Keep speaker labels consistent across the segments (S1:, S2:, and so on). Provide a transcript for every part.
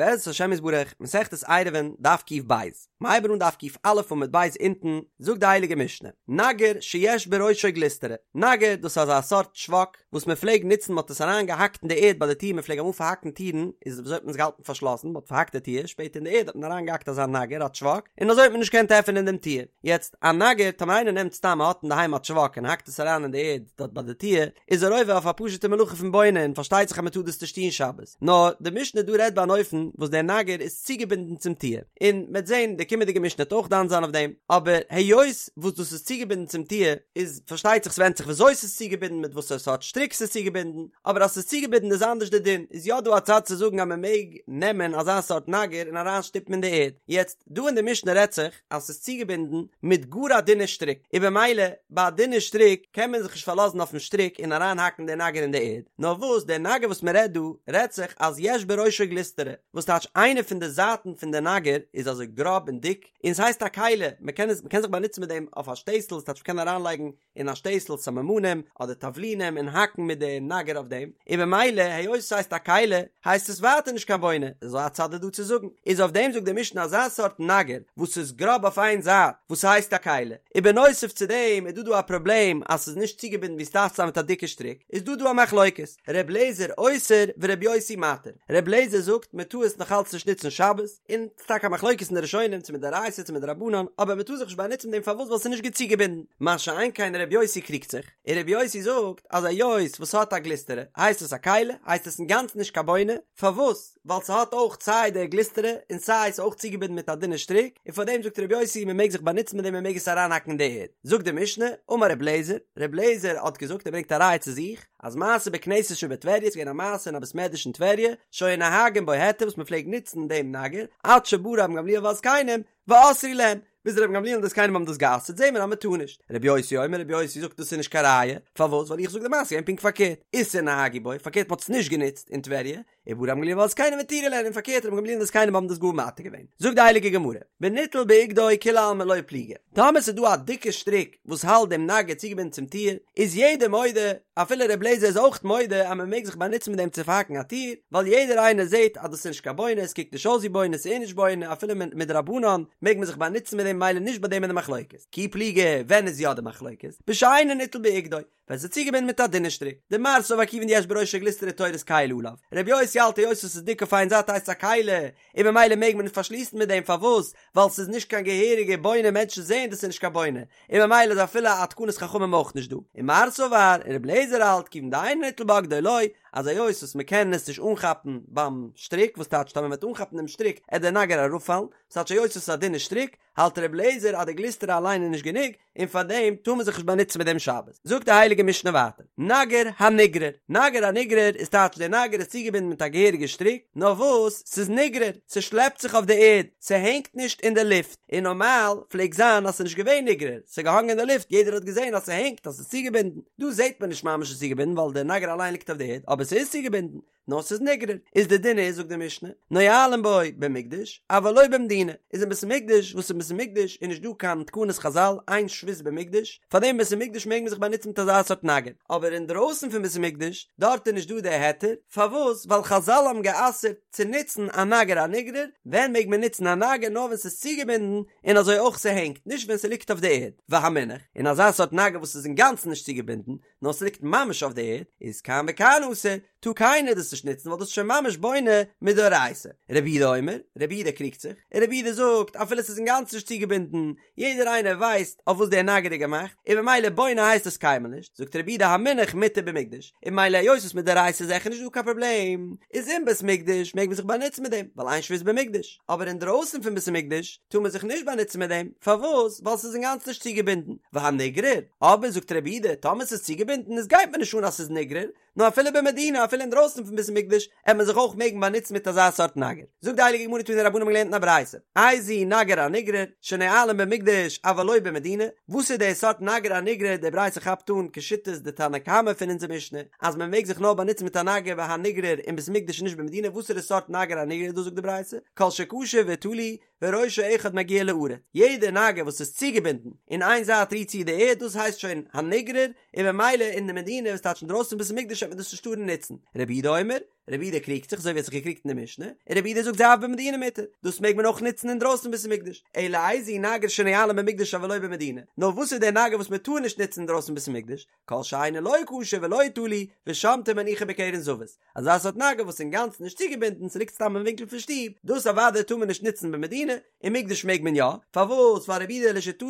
S1: בעזרת השם יתברך, מסכת עירובין, דף ק"ב. מ'הייבן אן דף ק"א עמוד ב' אונטן, זאגט די הייליגע משנה, נגר שיש בראשו גלוסטרא, נגר דאס איז אזא סארט טשוואק וואס מען פלעג נוצן מען האט עס אריין געהאקט אין די ערד ביי די טיר מען פלעג אמאל פארהאקן טירן איז וויאזוי האט מען עס געהאלטן פארשלאסן מען האט פארהאקט די טיר שפעטער אין די ערד האט מען אריין געהאקט אזא נגר א טשוואק און אזוי האט מען נישט געקענט עפענען דעם טיר, יעצט א נגר טאמער איינער נעמט סתם האט אינדערהיים א טשוואק און האקט עס אריין אין די ערד דארט ביי די טיר איז ער עובר אויף א פשוטע מלאכה פון בונה און פארשטייט זיך אז מען טאר דאס נישט טון שבת, נאר די משנה דא רעדט ביי אן אופן וואס דער נגר איז צוגעבינדן צום טיר, און מ'עט זען די קומענדיגע משנה וועט אויך דן זיין אויף דעם, אבער היות וואס דאס איז צוגעבינדן צום טיר איז פארשטייט זיך ס'ווענדט זיך וויאזוי ס'איז צוגעבינדן מיט וואסערע סארט שטריק ס'איז צוגעבינדן, אבער אז ס'איז צוגעבינדן איז אנדערש די דין, איז יא דא א צד צו זאגן אז מ'מעג נעמען אזא סארט נגר און אריין שטופן אין די ערד, יעצט דא אין די משנה רעדט זיך אז ס'איז צוגעבינדן מיט גאר א דינע שטריק, און במילא ביי א דינע שטריק קען מען זיך נישט פארלאזן אויפן שטריק און אריינהאקן די נגר אין די ערד, נאר וואס דער נגר וואס מען רעדט דא רעדט זיך אז יש בראשו גלוסטרא, וואס טייטש איינע פון די זייטן פון די נגר איז אזוי גראב און דיק, און ס'הייסט א כלי, מען קען עס מען קען זיך באנוצן מיט דעם אויף א שטייסל, ס'טייטש מען קען אריינלייגן אין א שטייסל סממנים אדער תבלינים און האקן מיט די נגר אויף דעם, און במילא היות עס הייסט א כלי הייסט עס ווייטער נישט קיין בונה, אזוי א צד איז דא צו זאגן, איז אויף דעם זאגט די משנה אזא סארט נגר וואס איז גראב אויף איין זייט וואס הייסט א כלי, און בנוסף צו דעם איז דא דא א פראבלעם אז ס'איז נישט צוגעבינדן ווי ס'דארף צו זיין מיט א דיקע שטריק, איז דא דא א מחלוקת, ר' לעזער אוסר ור' יוסי מתיר, ר' לעזער זאגט מען טאר עס נאכאלץ נישט נוצן שבת, און ס'איז טאקע א מחלוקת אין די ראשונים צו מדאורייתא צו מדרבנן, אבער מ'טאר זיך נישט באנוצן מיט דעם פארוואס ווייל ס'איז נישט גוט צוגעבינדן, מה שאין כן ר' יוסי קריגט זיך, און ר' יוסי זאגט אז היות וואס ס'האט א גלוסטרא הייסט עס א כלי, הייסט עס אינגאנצן נישט קיין בונה, פארוואס? ווייל ס'האט אויך סיי די גלוסטרא און סיי ס'איז אויך צוגעבינדן מיט א דינע שטריק, און פארדעם זאגט ר' יוסי מ'מעג זיך באנוצן מיט דעם מ'מעג עס אריינהאקן אין די ערד. זאגט די משנה, אמר ר' לעזער, ר' לעזער האט געזאגט ער ברענגט א ראיה צו זיך, אז מעשה בכנסת שבטבריה איז געווען א מעשה אין א בית מדרש אין טבריה, שהיו נוהגין בו היתר וואס מען פלעגט נוצן דעם נגר, עד שבא רבן גמליאל והזקנים, ואסרו להן, ביז רבן גמליאל און די זקנים האבן דאס גע'אסר'ט זעהן מיר אז מען טאר נישט. רבי יוסי אומר רבי יוסי זאגט דאס איז נישט קיין ראיה, פארוואס ווייל איך זאג די מעשה איז געווען פונקט פארקערט, איסור נהגו בו, פארקערט מען האט עס נישט גענוצט אין טבריה, ובא רבן גמליאל והזקנים והתירו להן און פארקערט רבן גמליאל און די זקנים האבן דאס גאר מתיר געווען. זאגט די הייליגע גמרא, בניטל באגדו כולי עלמא לא פליגי, טאמער ס'איז דא א דיקע שטריק וואס האלט דעם נגר צוגעבינדן צום טיר, איז יעדער מודה, אפילו ר' לעזער איז אויך מודה אז מען מעג זיך באנוצן מיט דעם צו פארהאקן א טיר, ווייל יעדער איינער זעט אז דאס איז נישט קיין בונה, עס קוקט נישט אויס ווי בונה, ס'איז נישט בונה, אפילו מדרבנן מעג מען זיך באנוצן מיט דעם ממילא נישט ביי דעם איז די מחלוקת. כי פליגי, ווען איז יא די מחלוקת? בשאינו ניטל באגדו. ווען ס'איז צוגעבינדן מיט א דינע שטריק. דמר סבר כיון דיש בראשו גלוסטרא תורת כלי עליו. רבי יוסי האלט היות עס איז דיק אויף איין זייט הייסט עס א כלי, און ממילא מעג מען פארשליסן מיט דעם פארוואס? ווייל ס'איז נישט קיין געהעריגע בונה מענטשן זעען דאס איז נישט קיין בונה, און ממילא איז אפילו א תקנת חכמים אויך נישט דא. ומר סבר, און רבי אליעזר האלט כיון דאינו ניטל באגדו לא, אז היות וואס מ'קען עס נישט אנכאפן ביים שטריק, וואס טייטש טאמער מ'וועט אנכאפן דעם שטריק עט דער נגר אראפפאלן, ס'טייטש היות עס איז א דינע שטריק, האלט רבי אליעזר אז די גלוסטרא אליין איז נישט גענוג, און פאר דעם טאר מען זיך נישט באנוצן מיט דעם שבת. זאגט די הייליגע משנה ווייטער, נגר הנגרר, נגר הנגרר איז טייטש דער נגר איז צוגעבינדן מיט א געהעריגע שטריק, נאר וואס ס'איז נגרר, ס'שלעפט זיך אויף די ערד, ס'הענגט נישט אין די לופט, און נארמאל פלעגט זיין אז ס'איז נישט געווען נגרר, ס'איז געהאנגען אין די לופט, יעדער האט געזען אז ס'הענגט, אז ס'איז צוגעבינדן, דא זעט מען נישט ממש ס'איז צוגעבינדן ווייל דער נגר אליין ליגט אויף די ערד, אבער ס'איז צוגעבינדן, נאר ס'איז נגרר, איז די דין איז זאגט די משנה, נועלין בו במקדש, אבל לא במדינה, איז אין בית המקדש, וואס אין בית המקדש איז נישט דא קיין תקנת חזל, אין שבות במקדש, פאר דעם אין בית המקדש מעג מען זיך באנוצן מיט אזא סארט נגר, אבער אינדרויסן פון בית המקדש, דארט איז נישט דא די היתר, פארוואס? ווייל חזל האבן גע'אסר'ט צו נוצן א נגר הנגרר, ווען מעג מען נוצן א נגר? נאר ווען ס'איז צוגעבינדן, און אזוי אויך ס'הענגט, נישט ווען ס'ליגט אויף די ערד, והמונח, און אזא סארט נגר וואס איז אינגאנצן נישט צוגעבינדן, נאר ס'ליגט ממש אויף די ערד, איז כאן וכאן אסור, טאר קיינער דאס נישט נוצן ווייל דאס איז שוין ממש בונה מדאורייתא. רבי יהודה אומר, רבי יהודה קריגט זיך, און רבי יהודה זאגט, אפילו ס'איז אינגאנצן נישט צוגעבינדן, יעדער איינער ווייסט אויף וואס דער נגר איז געמאכט, און ממילא בונה הייסט עס קיינמאל נישט, זאגט רבי יהודה המונח מותר במקדש, און ממילא היות וואס מדאורייתא איז זיכער נישט דא קיין פראבלעם, איז אין בית מקדש מעג מען זיך באנוצן מיט דעם, ווייל אין שבות במקדש, אבער אינדרויסן פון בית המקדש טאר מען זיך נישט באנוצן מיט דעם, פארוואס? ווייל ס'איז אינגאנצן נישט צוגעבינדן, והנגרר, אבער זאגט רבי יהודה, טאמער ס'איז צוגעבינדן איז גייט מיר נישט אן אז ס'איז נגרר, נאר אפילו במדינה אפילו אינדרויסן פון בית המקדש עט מען זיך אויך מעגן באנוצן מיט אזא סארט נגר. זאגט די הייליגע גמרא תנו רבנן האבן געלערנט אין א ברייתא, איזהו נגר הנגרר, שנועלין במקדש אבל לא במדינה, וואס איז די סארט נגר הנגרר, די ברייתא כאפט אן כשיטת די תנא קמא פון אונזער משנה, אז מען מעג זיך נאר באנוצן מיט א נגר והנגרר אין בית המקדש און נישט במדינה, וואסערע סארט נגר הנגרר איז דאס זאגט די ברייתא, כל שקשור ותלוי, וראשו אחד מגיע לארץ, יעדע נגר וואס איז צוגעבינדן און איין זייט רירט צו די ערד דאס הייסט שוין הנגרר, און במילא אין די מדינה וואס טייטש אינדרויסן בית המקדש וועט מען דאס נישט טארן נוצן, רבי יהודה אומר, רבי יהודה קריגט זיך אזוי ווי ער האט זיך געקריגט אין די משנה, און רבי יהודה זאגט זה אף במדינה מותר, דאס מעג מען אויך נוצן אינדרויסן בית המקדש, אלא איזהו נגר שנועלין במקדש אבל לא במדינה, נאר וואס איז דער נגר וואס מען טאר נישט נוצן אינדרויסן בית המקדש, כל שאינו לא קשור ולא תלוי, ושומטו ומניחו בקרן זווית, אזא סארט נגר וואס איז אינגאנצן נישט צוגעבינדן, ס'ליגט סתם אין ווינקל פון שטוב, דאס אוודאי טאר מען נישט נוצן במדינה, אין מקדש מעג מען יא, פארוואס? ווייל רבי יהודה לשיטתו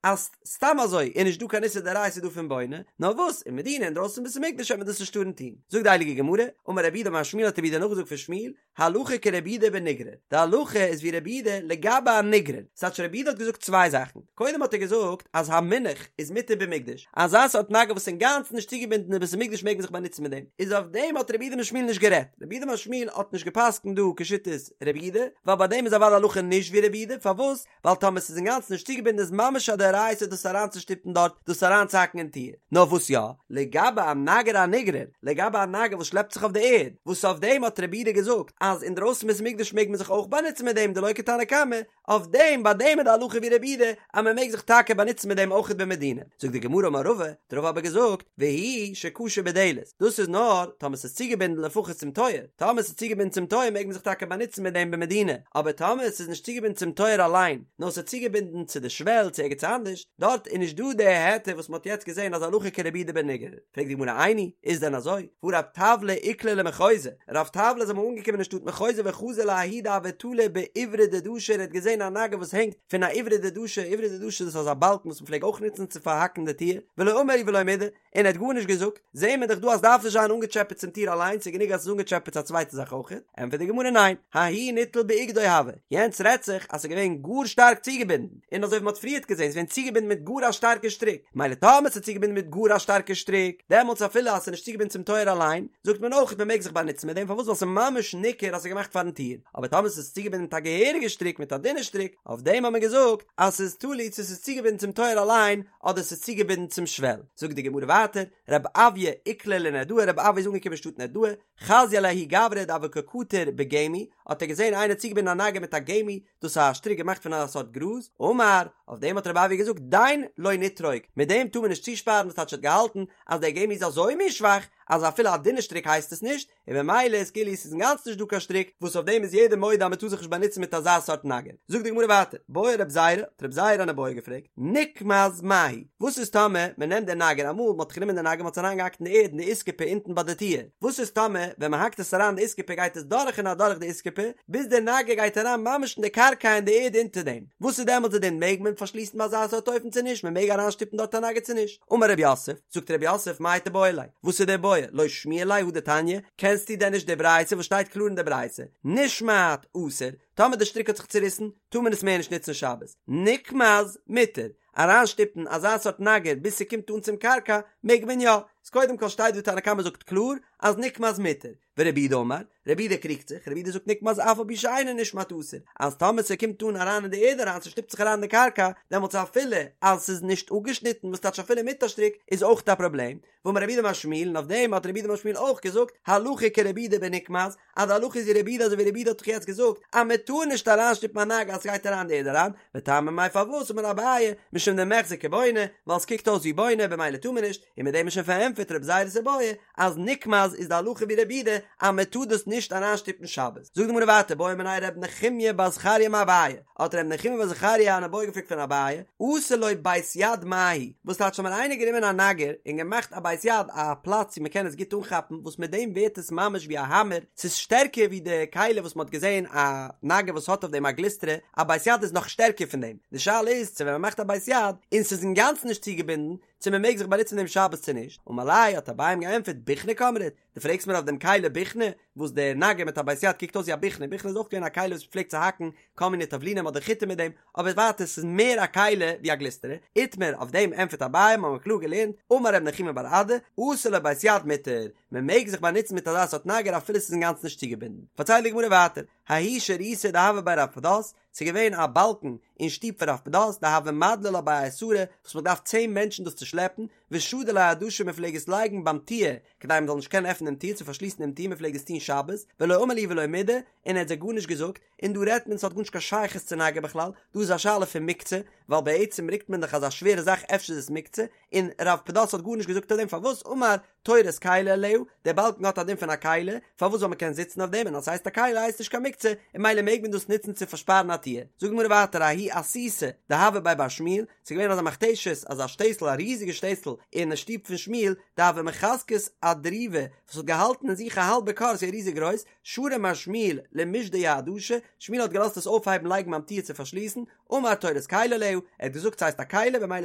S1: אז סתם אזוי איז נישט דא קיין איסור דאורייתא דא פון בונה, נאר וואס אין מדינה אינדרויסן בית המקדש וועט מען דאס נישט טארן טון. זאגט די הייליגע גמרא, אמר רב יהודה אמר שמואל האט רב יהודה נאכגעזאגט פון שמואל, הלכה כרבי יהודה בנגרר, די הלכה איז ווי רבי יהודה לגבי א נגרר, ס'טייטש רבי יהודה האט געזאגט צוויי זאכן, קודם האט ער געזאגט אז המונח איז מותר במקדש, אזא סארט נגר וואס איז אינגאנצן נישט צוגעבינדן אין בית המקדש מעג מען זיך באנוצן מיט דעם, איז אויף דעם האט רב יהודה אמר שמואל נישט גערעדט, רב יהודה אמר שמואל האט נישט גע'פסק'נט דא כשיטת רבי יהודה, ווייל ביי דעם איז אוודאי הלכה נישט ווי רבי יהודה, פארוואס? ווייל טאמער ס'איז אינגאנצן נישט צוגעבינדן איז ממש א דאורייתא דאס אריינצושטופן דארט, דאס אריינצוהאקן אין טיר. נאר וואס יא? לגבי א נגר הנגרר, לגבי א נגר וואס שלעפט זיך אויף די ערד, וואס אויף דעם האט רבי יהודה געזאגט אז אינדרויסן בית המקדש מעג מען זיך אויך באנוצן מיט דעם דלא כתנא קמא, אויף דעם ביי דעם איז די הלכה ווי רבי יהודה אז מען מעג זיך טאקע באנוצן מיט דעם אויכעט במדינה. זאגט די גמרא אמר רבא, האט רבא אבער געזאגט, והוא שקשור בדלת, דאס איז נאר טאמער ס'איז צוגעבינדן לפחות צום טויער, טאמער ס'איז צוגעבינדן צום טויער מעג מען זיך טאקע באנוצן מיט דעם במדינה, אבער טאמער ס'איז נישט צוגעבינדן צום טויער אליין, נאר ס'איז צוגעבינדן צו די שוועל צו ערגעץ אנדערש, דארט איז נישט דא די היתר וואס מ'האט יעצט געזען אז הלכה כרבי יהודה בנגרר. פרעגט די גמרא איני, איז דען אזוי? והא רב טבלא איקלע למחוזא, רב טבלא איז אמאל אנגעקומען אין שטאט מחוזא וחזא לההוא דהוה תלי באיברא דדשא און ער האט געזען א נגר וואס הענגט פון א איברא דדשא, איברא דדשא דאס איז אזא באלקן וואס מ'פלעג אויך נוצן צו פארהאקן די טיר, ולא אמר ולא מידי, און ער האט גארנישט געזאגט, זעהן מיר דאך דא אז דארף נישט זיין אנגעטשעפעט צום טיר אליין, ס'איז גענוג אז ס'איז אנגעטשעפעט צו א צווייטע זאך אויך, ענטפערט די גמרא ניין, ההוא ניטל באוגדו הוה, יענץ רעדט זיך אז ס'איז געווען גאר שטארק צוגעבינדן, און אזוי ווי מ'האט פריערט געזעהן ס'איז געווען צוגעבינדן מיט גאר א שטארקע שטריק, מילא טאמער ס'איז צוגעבינדן מיט גאר א שטארקע שטריק, דעמאלטס אפילו אז ס'איז נישט צוגעבינדן צום טויער אליין, זאגט מען אויך מ'מעג זיך באנוצן מיט דעם, פארוואס ווייל ס'איז ממש ניכר אז ס'איז געמאכט פארן טיר, אבער טאמער ס'איז צוגעבינדן מיט א געהעריגע שטריק מיט א דינע שטריק, אויף דעם האט מען געזאגט אז ס'איז תלוי צו ס'איז צוגעבינדן צום טויער אליין, אדער ס'איז צוגעבינדן צום שוועל. זאגט די גמרא ווייטער, רב אויא איקלע לנהרדעא, רב אויא איז אנגעקומען אין שטאט נהרדעא, חזייה לההוא גברא דהוה קא קטר בגמי, האט ער געזען איינער צוגעבינדן א נגר מיט א גמי, דאס איז א שטריק געמאכט פון א סארט גראז, אמר, אויף דעם האט רב אויא געזאגט, דין לא נטרוק, מיט דעם טאר מען נישט צושפארן, וואס טייטש ער האט געהאלטן אז דער גמי איז אזוי מין שוואך, אז אפילו א דינע שטריק הייסט עס נישט, און במילא איז כאילו עס איז אינגאנצן נישט דא קיין שטריק וואס אויף דעם איז יעדער מודה אז מען טאר זיך נישט באנוצן מיט אזא סארט נגר. זאגט די גמרא ווייטער, בעי רב זירא, האט רב זירא אן איבעיא געפרעגט, נקמז מהו, וואס איז טאמער מען נעמט די נגר, אמאל מען האט גענומען די נגר מען האט עס אריינגעהאקט אין די ערד אין די איסקופה אונטן ביי די טיר, וואס איז טאמער ווען מען האקט עס אריין אין די איסקופה גייט עס דורך און אדורך די איסקופה ביז די נגר גייט אריין ממש אין די קרקע אין די ערד אונטער דעם, וואס איז דעמאלטס די דין מעג מען פארשליסן ביי אזא סארט אופן צו נישט, מען מעג אריינשטופן דארט א נגר צו נישט? אמר רב יוסף, זאגט רב יוסף, מאי תיבעי ליה, וואס איז די בעיא, לא שמיע ליה הא דתניא, קענסטו דען נישט די ברייתא וואס שטייט קלאר אין די ברייתא, נשמט אסור, טאמער די שטריק האט זיך צוריסן, טאר מען עס מער נישט נוצן שבת, נקמז מותר, אריינשטופן אזא סארט נגר ביז ס'קומט אן צום קרקע, מעג מען יא, איז קודם כל שטייט דא תנא קמא זאגט קלאר אז נקמז מותר, ורבי יהודה אמר, רבי יהודה קריגט זיך, רבי יהודה זאגט נקמז אף על פי שאינו נשמט אסור, אז טאמער ס'קומט אן אריין אין די ערד אריין, ס'שטופט זיך אריין אין די קרקע, דעמאלטס אפילו אז ס'איז נישט אפגעשניטן, וואס טייטש אפילו מיט א שטריק, איז אויך א פראבלעם, ואמר רב יהודה אמר שמואל, און אויף דעם האט רב יהודה אמר שמואל אויך געזאגט, הלכה כרבי יהודה בנקמז, אז די הלכה איז ווי רבי יהודה אזוי ווי רבי יהודה האט דאך יעצט געזאגט, אז מען טאר נישט אריינשטופן א נגר אז ס'גייט אריין אין די ערד אריין, וטעמא מאי פארוואס אמר אביי, משום דמיחזי כבונה, ווייל ס'קוקט אויס ווי בונה במילא טאר מען נישט, און מיט דעם איז שוין פארענטפערט רב זירא'ס איבעיא, אז נקמז איז די הלכה ווי רבי יהודה אז מען טאר דאס נישט אריינשטופן שבת. זאגט די גמרא ווייטער בעא מיניה רב נחומיא בר זכריה מאביי, האט רב נחומיא בר זכריה אן איבעיא געפרעגט פון אביי, עשה לו בית יד מהו, וואס טייטש טאמער איינער גענומען א נגר און געמאכט א בית יד א פלאץ ווי מען קען עס גוט אנכאפן וואס מיט דעם ווערט עס ממש ווי א האמער, ס'איז שטערקער ווי די כלי וואס מען האט געזען א נגר וואס האט אויף דעם א גלוסטרא, א בית יד איז נאך שטערקער פון דעם, די שאלה איז צו ווען מען מאכט א בית יד און ס'איז אינגאנצן נישט צוגעבינדן, צו מען מעג זיך באנוצן מיט דעם שבת צו נישט, אמר ליה האט אביי אים געענטפערט בוכנא קאמרת, דו פרעגסט מיר אויף דעם כלי בוכנא, וואס דער נגר מיט א בית יד קוקט אויס ווי א בוכנא, בוכנא איז אויך געווען א כלי וואס מען פלעגט צו האקן כל מיני תבלינים אדער חיטה מיט דעם, אבער ווייטער ס'איז מער א כלי ווי א גלוסטרא, איתמר, אויף דעם ענטפערט אביי, מ'האמיר קלאר געלערנט, אמר רב נחומי בר אדא, עשה לו בית יד מותר, מען מעג זיך באנוצן מיט אזא סארט נגר אפילו ס'איז אינגאנצן נישט צוגעבינדן. פארציילט די גמרא ווייטער, ההוא שריתא דהוה בי רב פדת, ס'איז געווען א באלקן אין שטוב פון רב פדת דהוו מדלי לה בי עשרה וואס מ'האט געדארפט צען מענטשן דאס צו שלעפן, ושדי ליה אדשא מען פלעג עס לייגן ביים טיר כדי מען זאל נישט קענען עפענען דעם טיר צו פארשליסן דעם טיר מען פלעג עס טון שבת, ולא אמר להו ולא מידי, און ער האט זיי גארנישט געזאגט, און דא רעדט מען ס'האט גארנישט קיין שייכות צו נגר בכלל, דא איז א שאלה פון מוקצה, ווייל בעצם רוקט מען דאך אזא שווערע זאך אפשר איז עס מוקצה, און רב פדת האט גארנישט געזאגט אויף דעם פארוואס אמר תורת כלי עליה, דער באלקן האט א דין פון א כלי, פארוואס ווייל מ'קען זיצן אויף דעם און אז ס'הייסט א כלי הייסט נישט קיין מוקצה, און ממילא מעג מען דאס נוצן צו פארשפארן א טיר. זאגט די גמרא ווייטער ההיא אסיתא דהוה בי בר שמואל, ס'איז געווען אזא מכתשת, אזא שטעסל, א ריזיגע שטעסל, אין שטוב פון שמואל, דהוה מחזקת אדריבא, וואס האט געהאלטן אין זיך א האלבע כור, ס'איז ריזיג גרויס, שרא מר שמואל למישדיה אדשא, שמואל האט געלאזט עס אויפהייבן לייגן ביים טיר צו פארשליסן, אמר תורת כלי עליה, ער האט געזאגט ס'הייסט א כלי במילא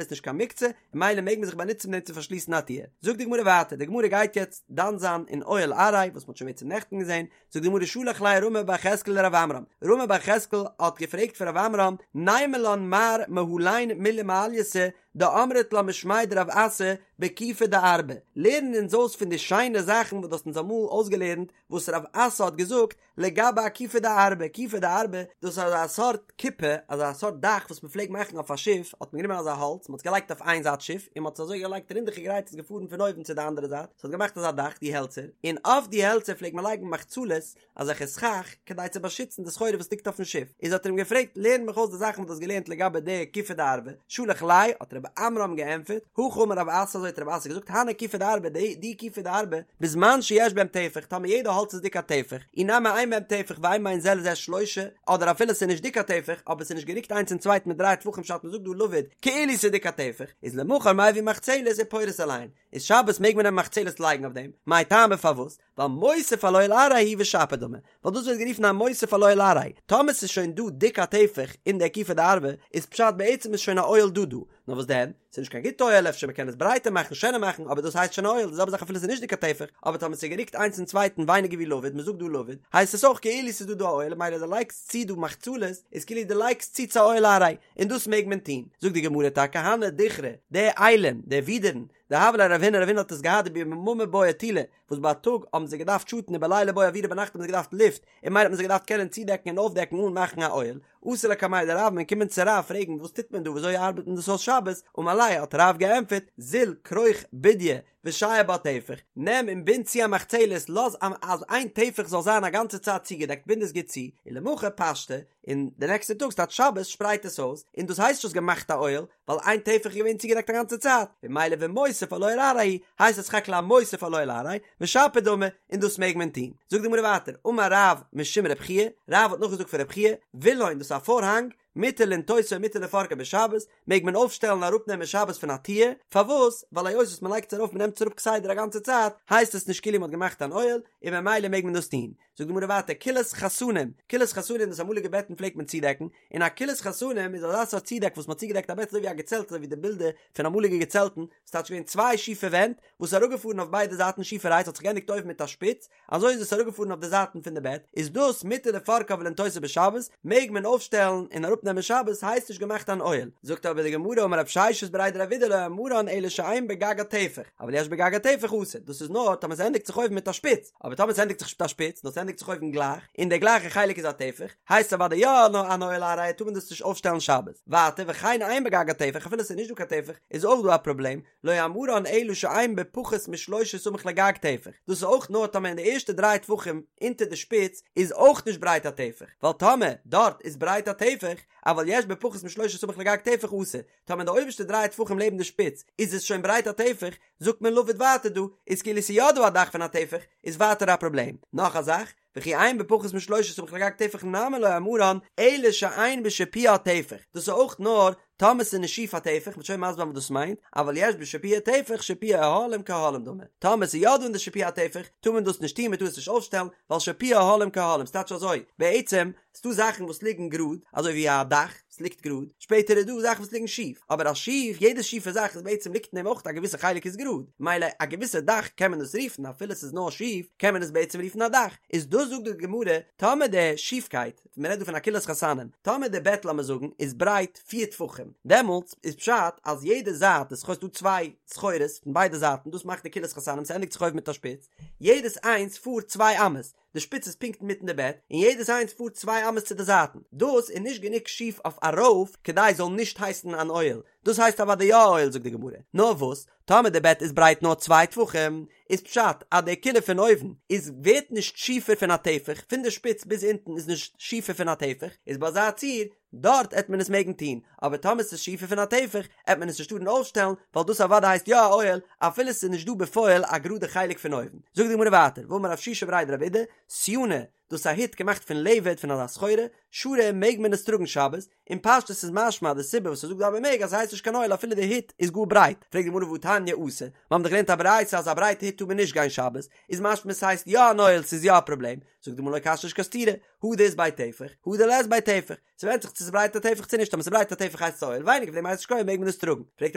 S1: איז נישט קיין מוקצה, און ממילא מעג מען זיך באנוצן מיט דעם צו פארשליסן א טיר. זאגט די גמרא ווייטער, די גמרא גייט יעצט דן זיין אין אוהל עראי, וואס מ'האט שוין בעצם נעכטן געזען, זאגט די גמרא שלח ליה רמי בר יחזקאל לרב עמרם, רמי בר יחזקאל האט געפרעגט פון רב עמרם, נימא לן מר מהלין מילי מעלייתא דאמרת לן משמיה דרב אסי בכיפי דארבא, לערן אונז אויס פון די שיינע זאכן וואס דו האסט אונז אמאל אויסגעלערנט וואס רב אסי האט געזאגט לגבי א כיפי דארבא, כיפי דארבא, דאס איז אזא סארט כיפה, אזא סארט דאך וואס מען פלעגט מאכן אויף א שיף, האט מען גענומען אזא האלץ, מען האט עס געלייגט אויף איין זייט שיף, און מען האט עס אזוי געלייגט רינדעכיגערהייט איז געפארן פון אויבן צו די אנדערע זייט, עס האט געמאכט אזא דאך, די העלצער, און אויף די העלצער פלעגט מען לייגן מחצלות, אזעלכע סכך, כדי צו באשיצן די סחורה וואס ליגט אויפן שיף, איז האט ער אים געפרעגט, לערן מיך אויס די זאכן וואס דו האסט געלערנט לגבי די כיפי דארבא, שלח ליה, האט רב עמרם געענטפערט, הכי אמר רב אסי אזוי האט רב אסי געזאגט, הני כיפי דארבא, די כיפי דארבא, בזמן שיש בהם טפח, טאמער יעדע האלץ איז דיק א טפח, אי נמי אין בהם טפח ואין בין זה לזה שלושה, אדער אפילו ס'איז נישט דיק א טפח, אבער ס'איז נישט גערוקט איינס צום צווייטן מיט דריי טפחים פשט מ'זאגט דא לבוד, כאילו ס'איז דיק א טפח, איז למחר מביא מחצלת ופורס עליהן, איז שבת מעג מען נעמען מחצלת לייגן אויף דעם, מאי טעמא פארוואס? ווייל מוסיף על אוהל עראי הוא ושפיר דמי, ווייל דאס ווערט גערופן א מוסיף על אוהל עראי, טאמער ס'איז שוין דא דיק א טפח אין די כיפי דארבא, איז פשט בעצם איז שוין א אוהל דא דא, נאר וואס דען? ס'איז נישט קיין גוטע אוהל אפשר מ'קען עס ברייטער מאכן שענער מאכן אבער דאס הייסט שוין א אוהל די זעלבע זאך אפילו ס'איז נישט דיק א טפח אבער טאמער ס'איז גערוקט איינס צום צווייטן ווייניגער ווי לבוד מ'זאגט דא לבוד הייסט עס אויך כאילו ס'איז דא דא א אוהל ממילא דו לייגסט צו דא מחצלות איז כאילו דו לייגסט צו צו א אוהל עראי און דאס מעג מען טון זאגט די גמרא טאקע הני דכרי די אילים די ווידערן דהוה ליה לרב הונא רב הונא האט עס געהאט דביממא בעו טולא וואס בייטאג האבן זיי געדארפט שאטן ובליליא בעו אוירא ביינאכט האבן זיי געדארפט לופט און ממילא האט מען זיי געדארפט קענען צודעקן און אויפדעקן אן מאכן א אוהל אתו לקמיה דרב מ'איז געקומען צו רב פרעגן וואס טוט מען דא וויאזוי ארבעט מען דאס אויס שבת אמר ליה האט רב געענטפערט זיל כרוך בודיא ושייר בה טפח נעם און בינד צו א מחצלת לאז אז איין טפח זאל זיין א גאנצע צייט צוגעדעקט בינד עס גוט צו ולמחר פשטה און די נעקסטע טאג ס'טייטש שבת שפרייט עס אויס און דאס הייסט נישט האסט געמאכט א אוהל ווייל איין טפח איז געווען צוגעדעקט א גאנצע צייט, ממילא ומוסיף על אוהל עראי הייסט עס סך הכל א מוסיף על אוהל עראי, ושפיר דמי, און דאס מעג מען טון. זאגט די גמרא ווייטער, אמר רב משום רב חייא, רב האט נאכגעזאגט פון רב חייא, וילון דאס איז א פארהאנג, מותר לנטותו ומותר לפורקו בשבת, מעג מען אויפשטעלן און אראפנעמען שבת פון א טיר, פארוואס? ווייל היות וואס מען לייגט עס ארויף מען נעמט עס אראפ כסדר א גאנצע צייט, הייסט עס נישט כאילו מען האט געמאכט אן אוהל, און ממילא מעג מען דאס טון. זאגט די גמרא ווייטער כילת חתנים, כילת חתנים דאס אמאליגע בעטן פלעגט מען צודעקן, און א כילת חתנים איז אזא סארט צודעק וואס מען האט צוגעדעקט א בעט אזוי ווי א געצעלט אזוי ווי די בילדער פון אמאליגע געצעלטן, ס'טייטש געווען צוויי שיפע ווענט וואס איז אראפגעפארן אויף ביידע זייטן שיפערהייט ס'האט זיך געענדיגט אויבן מיט א שפיץ, אזוי איז עס אראפגעפארן אויף די זייטן פון די בעט, איז דאס מותר לפורקה ולנטותה בשבת, מעג מען אויפשטעלן און אראפנעמען שבת, הייסט נישט געמאכט אן אוהל. זאגט אבער די גמרא אמר רב ששת בריה דרב אידי לא אמרן אלא שאין בגגה טפח, אבל יש בגגה טפח אסור, דאס איז נאר טאמער ס'ענדיגט זיך אויבן מיט א שפיץ, אבער טאמער ס'ענדיגט זיך נישט מיט א שפיץ, נאר ס'ענדיגט זיך אויבן גלייך, און דער גלייכער חלק איז א טפח, הייסט עס אוודאי יא אן אוהל עראי טאר מען דאס נישט אויפשטעלן שבת. ווייטער, וכן אין בגגה טפח, אפילו ס'איז נישט דא קיין טפח, איז אויך דא א פראבלעם, לא אמרן אלא שאין בפחות משלושה סמוך לגג טפח, דאס איז אויך נאר טאמער אין די ערשטע דריי טפחים אונטער די שפיץ איז אויך נישט ברייט א טפח, ווייל טאמער דארט איז ברייט א טפח, אבל יש בפחות משלושה סמוך לגג טפח אסור, טאמער אין די אויבערשטע דריי טפחים לעבן די שפיץ איז עס שוין ברייט א טפח, זאגט מען לבוד ווייטער דא איז כאילו ס'איז יא דא א דאך פון א טפח, איז ווייטער א פראבלעם. נאך א זאך, וכי אין בפחות משלושה סמוך לגג טפח נמי לא אמרן אלא שאין בשיפועה טפח, דאס איז אויך נאר טאמער ס'איז נישט שיף א טפח, מ'וועט שוין מסביר זיין וואס דאס מיינט, אבל יש בשיפועה טפח שיפועי אוהלים כאוהלים דמי, טאמער ס'איז יא דא אין די שיפוע א טפח, טאר מען דאס נישט טון, מ'טאר עס נישט אויפשטעלן, ווייל שיפועי אוהלים כאוהלים, ס'טייטש אזוי, בעצם, ס'דא זאכן וואס ליגן גראד, אזוי ווי א דאך, וואס ליגט גראד, שפעטער איז דא זאכן וואס ליגן שיף, אבער א שיף, יעדע שיפע זאך איז בעצם ליגט אין דעם אויך א געוויסע חלק איז גראד, מילא א געוויסע דאך קען מען דאס רופן אפילו ס'איז נאר שיף, קען מען עס בעצם רופן א דאך, איז דאס זאגט די גמרא, טאמער די שיפקייט, מען רעדט דא פון א כילת חתנים, טאמער די בעט לאמיר זאגן איז ברייט פיר טפחים, דעמאלטס איז פשט אז יעדע זייט, עס איז דא צוויי סחורות פון ביידע זייטן, דאס מאכט די כילת חתנים, ס'ענדיגט זיך אויבן מיט א שפיץ, יעדעס איינס פארט צוויי אמות, די שפיץ איז פונקט אינמיטן די בעט, און יעדעס איינס פארט צוויי אמות צו די זייטן. דאס איז נישט גענוג שיף אויף ארויף כדי עס זאל נישט הייסן אן אוהל. דאס הייסט אוודאי יא א אוהל זאגט די גמרא. נאר וואס, טאמער די בעט איז ברייט נאר צוויי טפחים, איז פשט אז די כילה פון אויבן איז ווערט נישט שיפער פון א טפח, פון די שפיץ ביז אונטן איז נישט שיפער פון א טפח, איז ביי אזא ציור, דארט עט מען עס מעגן טון, אבער טאמער ס'איז שיפער פון א טפח, עט מען עס נישט טארן אויפשטעלן, ווייל דאס אוודאי הייסט יא א אוהל, אפילו ס'איז נישט דא בפועל א גראדע חלק פון אויבן. זאגט די גמרא ווייטער, ואמר רב שישא בריה דרב אידי, סיאנא, דאס איז א הוט געמאכט פון לבד פון אזא סחורה, שרי מעג מען עס טראגן שבת, און פשטות איז משמע אז די סיבה וואס ער זאגט דא אז מען מעג אז ס'הייסט נישט קיין אוהל אפילו די הוט איז גאר ברייט, פרעגט די גמרא והתניא אסור, מיר האבן דאך געלערנט א ברייתא אז א ברייטע הוט טאר מען נישט גיין שבת, איז משמע ס'הייסט יא אן אוהל ס'איז יא א פראבלעם, זאגט די גמרא לא קשיא נישט קיין סתירה, הא דאית ביה טפח, הא דלית ביה טפח, ס'ווענדט זיך צו ס'ברייט א טפח צו נישט, טאמער ס'ברייט א טפח הייסט עס א אוהל, ווייניגער פון דעם הייסט נישט קיין אוהל מעג מען עס טראגן, פרעגט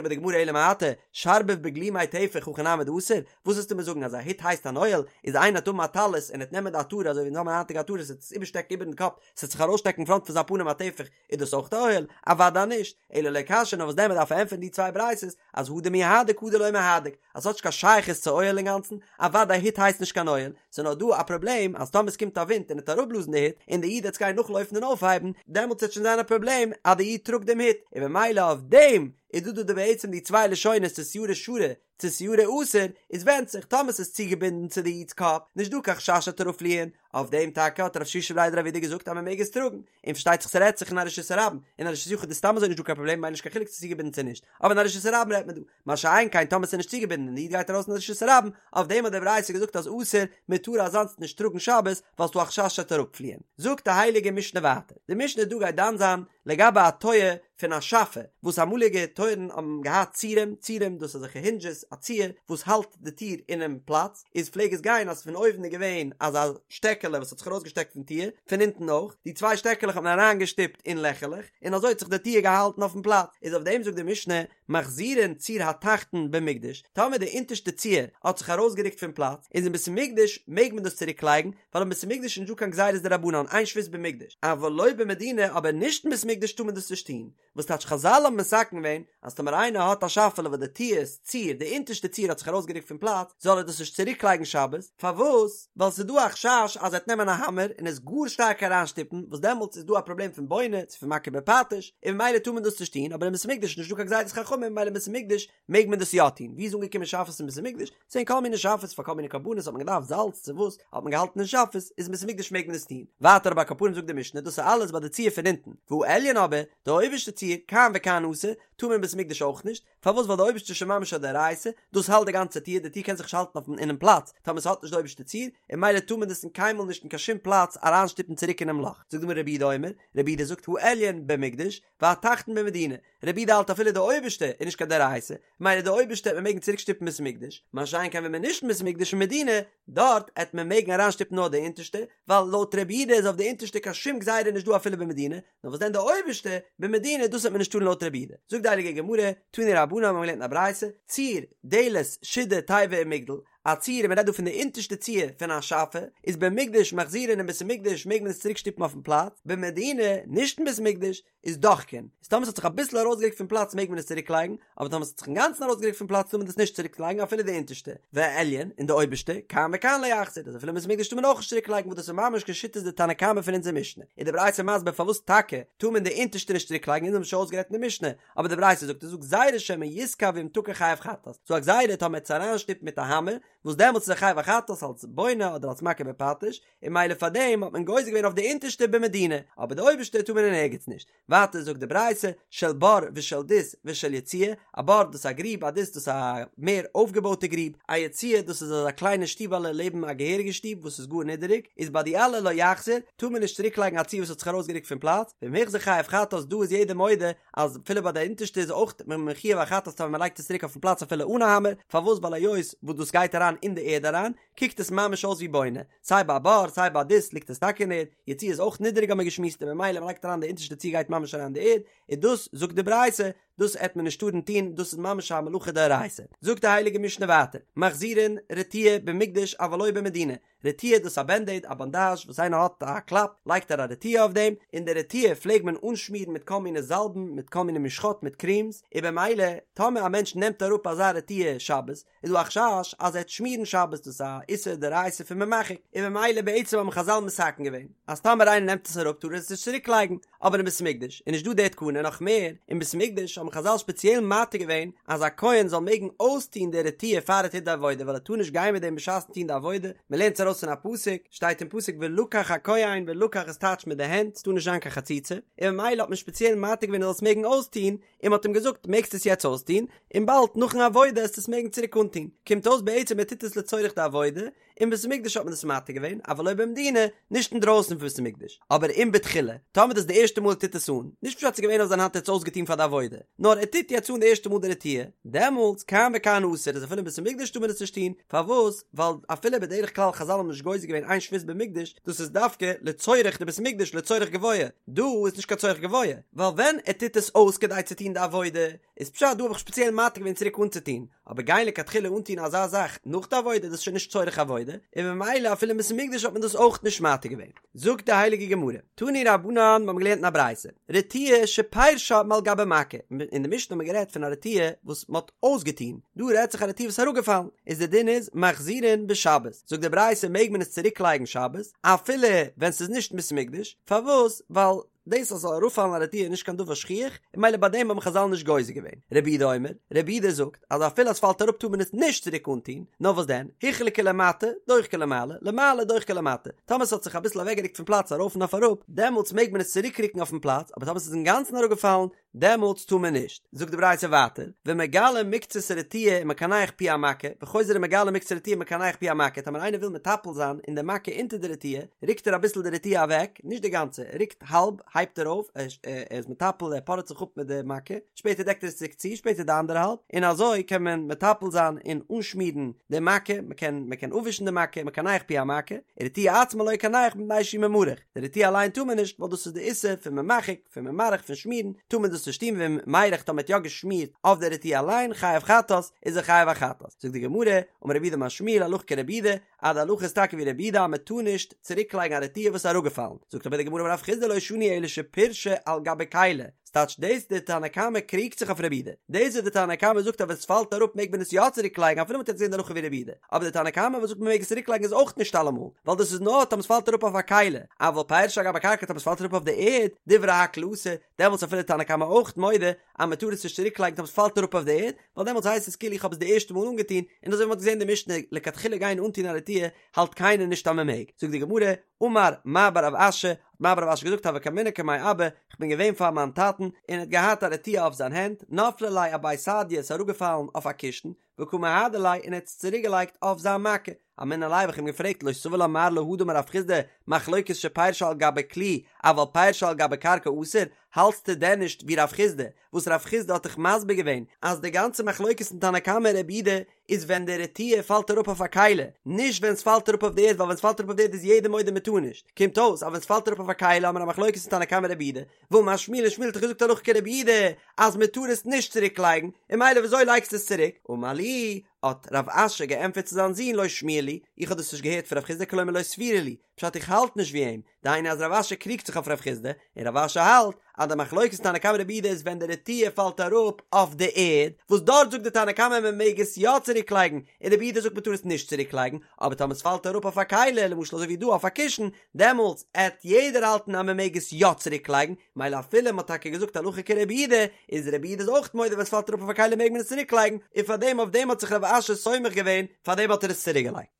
S1: אבער די גמרא אלא מעתה, שרביב בגלימיה טפח הכי נמי דאסור, וואס וועסטו מיר זאגן אז א הוט הייסט אן אוהל, איז איינער וועט האבן א טלית און ער וועט נעמען די עטרה אזוי ווי אונז האבן היינטיגע עטרות ער וועט עס איבערשטעקן איבערן קאפ, ס'וועט זיך ארויסשטעקן פראנט פון זיין פנים א טפח, איז דאס אויך א אוהל? אוודאי נישט, אלא לא קשיא נאר וואס דען מ'דארף ענטפערן די צוויי ברייתות אז הא דמיהדק הא דלא מיהדק, אז ס'האט נישט קיין שייכות צו אוהל אינגאנצן, אוודאי הוט הייסט נישט קיין אוהל, ס'איז נאר דא א פראבלעם אז טאמער ס'קומט א ווינט און עט אראפבלאזן די הוט און די איד עט עס גיין נאכלויפן און אויפהייבן, דעמאלטס וועט שוין זיין א פראבלעם אז די איד טראגט דעם הוט, און במילא אויף דעם איז דא דא די בעצם די צוויי לשונות צו סיארא שרי צו סיארא אסור, איז ווענדט זיך טאמער ס'איז צוגעבינדן צו די איד'ס קאפ, נישט דא קיין חשש ס'עט אראפפליען, אויף דעם טאקע האט רב שישא בריה דרב אידי געזאגט אז מ'מעג עס טראגן, און פארשטייט זיך ס'רעדט זיך אין א רשות הרבים, אין א רשות יחיד איז סתם אזוי נישט דא קיין פראבלעם ממילא נישט קיין חילוק צו ס'צוגעבינדן צו נישט, אבער אין א רשות הרבים רעדט מען דא, מה שאין כן טאמער ס'איז נישט צוגעבינדן און די איד גייט ארויס אין רשות הרבים, אויף דעם האט די ברייתא געזאגט אז אסור, מ'טאר אזאנס נישט טראגן שבת, ווייל ס'דא א חשש ס'עט אראפפליען. זאגט די הייליגע משנה ווייטער, די משנה דא גייט דן זיין לגבי א טויער פון א שאפע, וואס אמאליגע טויערן האבן געהאט צירים, צירים דאס איז אזעלכע הינדזשעס, א ציר וואס האלט די טיר אינעם פלאץ, איז פלעג עס גיין אז פון אויבן איז געווען אזא שטעקעלע וואס האט זיך ארויסגעשטעקט פון טיר, פון אונטן אויך, די צוויי שטעקעלעך האט מען אריינגעשטופט אין לעכעלעך, און אזוי האט זיך די טיר געהאלטן אויפן פלאץ, איז אויף דעם זאגט די משנה, מחזירין ציר התחתון במקדש, טאמער די אונטערשטע ציר האט זיך ארויסגערוקט פון פלאץ, איז אין בית המקדש מעג מען דאס צוריק לייגן, ווייל אין בית המקדש איז נישטא קיין גזירות דרבנן, אין שבות במקדש, אבל לא במדינה, אבער נישט אין בית המקדש טאר מען דאס נישט טון, וואס טייטש חזל האבן מתקן געווען אז טאמער איינער האט א שאפעלע וואס די טיר'ס ציר, די אונטערשטע ציר האט זיך ארויסגערוקט פון פלאץ, זאל ער דאס נישט צוריק לייגן שבת, פארוואס? ווייל ס'איז דא א חשש אז ער וועט נעמען א האמער און עס גאר שטארק אריינשטופן, וואס דעמאלטס איז דא א פראבלעם פון בונה צו פון מכה בפטיש, און ממילא טאר מען דאס נישט טון, אבער אין בית המקדש איז נישטא קיין גזירת חכמים ממילא אין בית המקדש מעג מען דאס יא טון, ווי איז אנגעקומען שאפעס אין בית המקדש? ס'זענען כל מיני שאפעס פאר כל מיני קרבנות האט מען געדארפט זאלץ צו וואס האט מען געהאלטן אין שאפעס, איז אין בית המקדש מעג מען עס טון. ווייטער אבער על כל פנים זאגט די משנה דאס איז אלעס ביי די ציר פון אונטן, והעליון אבער, די אויבערשטע ציר, כאן וכאן אסור, טאר מען אין בית המקדש אויך נישט, פארוואס ווייל די אויבערשטע איז שוין ממש א דאורייתא, דאס האלט די גאנצע טיר, די טיר קען זיך נישט האלטן אויפן אינעם פלאץ טאמער ס'האט נישט די אויבערשטע ציר, און ממילא טאר מען דאס אין קיינמאל נישט אין קיין שום פלאץ אריינשטופן צוריק אינעם לאך. זאגט די גמרא רבי יהודה אומר, רבי יהודה זאגט העליון במקדש, והתחתון במדינה, רבי יהודה האלט אפילו די אויבערשטע איז נישט קיין דאורייתא, ממילא די אויבערשטע העט מען מעגן צוריק שטופן בית המקדש, מה שאין כן ווען מען נישט אין בית המקדש אין מדינה, דארט העט מען מעגן אריינשטופן נאר די אונטערשטע, ווייל לויט רבי יהודה איז אויף די אונטערשטע קיין שום גזירה נישט דא אפילו במדינה, נאר וואס דען די אויבערשטע, במדינה, דאס העט מען נישט טארן לויט רבי יהודה. זאגט די הייליגע גמרא, תנו רבנן מיר האבן געלערנט אין א ברייתא, ציר, דלת, שידה, תיבה ומגדל, א ציר, און מען רעדט דא פון די אונטערשטע ציר פון א שאפע, איז במקדש מחזירין אין בית המקדש מעג מען עס צוריק שטופן אויפן פלאץ, במדינה, נישט אין בית המקדש, איז דוחקין, איז טאמער ס'האט זיך אביסל ארויסגערוקט פון פלאץ מעג מען עס צוריק לייגן, אבער טאמער ס'האט זיך אינגאנצן ארויסגערוקט פון פלאץ טאר מען דאס נישט צוריק לייגן אפילו די אונטערשטע, והעליון, און די אויבערשטע, כאן וכאן לא יחזיר, אז אפילו אין בית המקדש טאר מען אויך נישט צוריק לייגן וואס דאס איז ממש כשיטת די תנא קמא פון אונזער משנה, איז די ברייתא מסביר פארוואס טאקע טאר מען די אונטערשטע נישט צוריק לייגן אונז האבן שוין אויסגערעדט אין די משנה, אבער די ברייתא זאגט עס זאגט גזירה שמא יתקע ואם תקע חייב חטאת, ס'דא א גזירה טאמער עט עס אריינשטופן מיט א האמער, וואס דעמאלטס איז ער חייב א חטאת אלס בונה אדער אלס מכה בפטיש, און ממילא פאר דעם האט מען גוזר געווען אויף די אונטערשטע במדינה, אבער די אויבערשטע טאר מען אין ערגעץ נישט. ווייטער זאגט די ברייתא, של בור ושל דות ושל יציע, א בור דאס איז א גריב, א דות דאס איז א מער אויפגעבויטע גריב, א יציע דאס איז אזא קליינע שטיבעלע לעבן א געהעריגע שטוב וואס איז גאר נידעריג, איז ביי די אלע לא יחזיר, טאר מען נישט צוריק לייגן א ציר וואס האט זיך ארויסגערוקט פון פלאץ, ואם החזיר חייב חטאת, דא איז יעדער מודה אז אפילו ביי די אונטערשטע איז אויך מען מחויב א חטאת טאמער מען לייגט עס צוריק אויפן פלאץ אפילו אן א האמער, פארוואס ווייל היות וואס דאס גייט אריין אין די ערד אריין, קוקט עס ממש אויס ווי בונה, סיי ביי א בור סיי ביי א דות ליגט עס טאקע אין ערד, יציע איז אויך נידעריג האט מען געשמועסט און ממילא מען לייגט אריין די אונטערשטע ציר גייט ממש אריין אין די ערד, און דאס זאגט די ברייתא, דאס עט מען נישט טארן טון, דאס איז ממש א מלאכה דאורייתא. זאגט די הייליגע משנה ווייטער, מחזירין רטיה במקדש אבל לא במדינה, רטיה דאס איז א בענדעיד, א באנדאזש, וואס איינער האט א קלאפ לייגט ער א רטיה אויף דעם, און די רטיה פלעג מען אנשמירן מיט כל מיני זאלבן, מיט כל מיני משחות מיט קרימס, און במילא טאמער א מענטש נעמט אראפ אזא רטיה שבת, איז דא א חשש אז ער וועט שמירן שבת דאס איז א איסור דאורייתא פון ממחק, און במילא בעצם האבן חזל מתקן געווען אז טאמער איינער נעמט עס אראפ טאר ער עס נישט צוריק לייגן, אבער אין בית המקדש איז נישט דא די תקנה, נאך מער, אין בית המקדש האבן. האבן חזל שפעציעל מתיר געווען אז א כהן זאל מעגן אויסטון די רטיה פאר ער טוט די עבודה ווייל ער טאר נישט גיין מיט דעם בשעת'ן טון די עבודה, מען לערנט עס ארויס פון א פסוק, שטייט אין פסוק ולקח הכהן ולקח איז טייטש מיט די הענט, ס'טאר נישט זיין קיין חציצה, און ממילא האט מען שפעציעל מתיר געווען ער זאל עס מעגן אויסטון, און מ'האט אים געזאגט מעגסט עס יעצט אויסטון, און באלד נאכן עבודה עסטו עס מעגן צוריק אנטון, קומט אויס בעצם ער טוט עס לצורך די עבודה, אין בית המקדש האט מען עס מתיר געווען, אבל לא במדינה, נישט אינדרויסן פון בית המקדש, אבער אם בתחילה, טאמער דאס איז די ערשטע מאל ער טוט עס אן, נישט פשט ס'איז געווען אויף זיין האנט ער האט עס אויסגעטון פאר די עבודה, נאר ער טוט יעצט אן די ערשטע מאל די רטיה, דעמאלטס כאן וכאן אסור, איז אפילו אין בית המקדש טאר מען עס נישט טון, פארוואס? ווייל אפילו בדרך כלל חזל האבן נישט גוזר געווען אין שבות במקדש, דאס איז דווקא לצורך די בית המקדש לצורך גבוה, דא איז נישט קיין צורך גבוה, ווייל ווען ער טוט עס אויס כדי צו טון די עבודה, איז פשט דא האב איך שפעציעל מתיר געווען צוריק אנצוטון, אבער גיין לכתחילה אנטון אזא זאך נאך די עבודה דאס איז שוין נישט צורך עבודה, און ממילא אפילו אין בית המקדש האט מען דאס אויך נישט מתיר געווען. זאגט די הייליגע גמרא, תנו רבנן, מיר האבן געלערנט אין א ברייתא, רטיה שפירשה מעל גבי מכה, אין די משנה האט מען גערעדט פון א רטיה וואס מען האט אויסגעטון, דא רעדט זיך א רטיה וואס איז אראפגעפאלן, איז די דין איז מחזירין בשבת, זאגט די ברייתא מעג מען עס צוריק לייגן שבת, אפילו ווען ס'איז נישט אין בית המקדש, פארוואס? ווייל דאס אז ס'זאל אראפפאלן א רטיה איז נישט קיין דבר שכיח, און ממילא ביי דעם האבן חזל נישט גוזר געווען. רבי יהודה אומר, רבי יהודה זאגט אז אפילו אז ס'פאלט אראפ טאר מען עס נישט צוריק אנטון, נאר וואס דען, הוחלקה למטה, דוחקה למעלה, למעלה דוחקה למטה, טאמער ס'האט זיך אביסל אוועקגערוקט פון פלאץ ארויף און אויף אראפ, דעמאלטס מעג מען עס צוריקרוקן אויפן פלאץ, אבער טאמער ס'איז אינגאנצן אראפגעפאלן, דעמאלטס טאר מען נישט. זאגט די ברייתא ווייטער, ומגלה מקצת הרטיה ומקנח פי המכה, וחוזר ומגלה מקצת הרטיה ומקנח פי המכה, טאמער איינער וויל מטפל זיין אין די מכה אונטער די רטיה, רוקט ער אביסל די רטיה אוועק, נישט די גאנצע, ער רוקט האלב, הייבט ער אויף, ער איז מטפל, ער פארעט זיך אפ מיט די מכה, שפעטער דעקט ער עס צוריק צו, שפעטער די אנדערע האלב, און אזוי קען מען מטפל זיין און אנשמירן די מכה, מען קען מען קען אפווישן די מכה, מקנח פי המכה, ורטיה עצמה לא יקנח מפני שהוא ממרח, די רטיה אליין טאר מען נישט, ווייל דאס איז די איסור פון ממחק, פון ממרח פון שמירן טאר מען דאס נישט טון ואם מירח טאמער מ'האט יא געשמירט אויף די רטיה אליין חייב חטאת איז ער חייב א חטאת זאגט די גמרא אמר רב יהודה אמר שמואל הלכה כרבי יהודה אז די הלכה איז טאקע ווי רבי יהודה אז מען טאר נישט צוריק לייגן א רטיה וואס איז אראפגעפאלן זאגט אבער די גמרא אמר רב חסדא לא שנו אלא שפירשה על גבי כלי ס'טייטש דאס די תנא קמא קריגט זיך אויף רבי יהודה דאס וואס די תנא קמא זאגט אז ווען ס'פאלט אראפ מעג מען עס יא צוריק לייגן אפילו מ'האט יעצט געזען די הלכה ווי רבי יהודה אבער די תנא קמא וואס זאגט מ'מעג עס צוריק לייגן איז אויך נישט אלעמאל ווייל דאס איז נאר טאמער ס'פאלט אראפ אויף א כלי אבל פירשה על גבי קרקע טאמער ס'פאלט אראפ אויף די ערד, דברי הכל אסור, דעמאלטס אפילו תנא קמא אויך מודה אז מ'טאר עס נישט צוריק לייגן טאמער ס'פאלט אראפ אויף די ערד, ווייל דעמאלטס הייסט עס כאילו איך האב עס די ערשטע מאל אנגעטון, און אזוי ווי מ'האט געזען די משנה לכתחילה גיין אנטון א רטיה האלט קיינער נישט אז מ'מעג, זאגט די גמרא, אמר מר בר רב אשי, האט מר בר רב אשי געזאגט הוה קאימנא קמיה אבא, כ'בין געווען פאר מיין טאטן, און ער האט געהאט א רטיה אויף זיין הענט, נפלה ליה אבי סדיא איז אראפגעפאלן אויף א קישן, וקא מהדר ליה און ער האט עס צוריק געלייגט אויף זיין מכה. אמינא ליה האב איך אים געפרעגט לא סבר לה מר להא דאמר רב חסדא מחלוקת שפירשה על גבי כלי אבל פירשה על גבי קרקע אסור, האלטסטו דען נישט ווי רב חסדא וואס רב חסדא האט דאך מסביר געווען אז די גאנצע מחלוקת אין תנא קמא און רבי יהודה איז ווען די רטיה פאלט אראפ אויף א כלי, נישט ווען ס'פאלט אראפ אויף די ערד ווייל ווען ס'פאלט אראפ אויף די ערד איז יעדער מודה מ'טאר נישט, קומט אויס אז ווען ס'פאלט אראפ אויף א כלי האמיר א מחלוקת אין תנא קמא רבי יהודה, ואמר שמואל און שמואל האט דאך געזאגט הלכה כרבי יהודה אז מען טאר עס נישט צוריק לייגן, און ממילא וויאזוי לייגסטו עס צוריק? אמר לי, האט רב אשי געענטפערט צו זיין זון לא שמיע לי, איך האב דאס נישט געהערט פון רב חסדא כלומר לא סבירא לי, פשט איך האלט נישט ווי אים, דהיינו אז רב אשי קריגט זיך אויף רב חסדא, און רב אשי האלט אז די מחלוקת תנא קמא רבי יהודה איז ווען די רטיה פאלט אראפ אויף די ערד, וואס דארט זאגט די תנא קמא מען מעג עס יא צוריק לייגן, און רבי יהודה זאגט מען טאר עס נישט צוריק לייגן, אבער טאמער עס פאלט אראפ אויף א כלי, למשל אזוי ווי דא אויף א קישן, דעמאלטס עט יעדער האלטן אז מען מעג עס יא צוריק לייגן, מילא אפילו מען האט טאקע געזאגט הלכה כרבי יהודה, איז רבי יהודה איז אויך מודה ווען עס פאלט אראפ אויף א כלי מעג מען עס צוריק לייגן, און פארדעם אויף דעם האט זיך רב אשי סומך געווען, פארדעם האט ער עס צוריק געלייגט.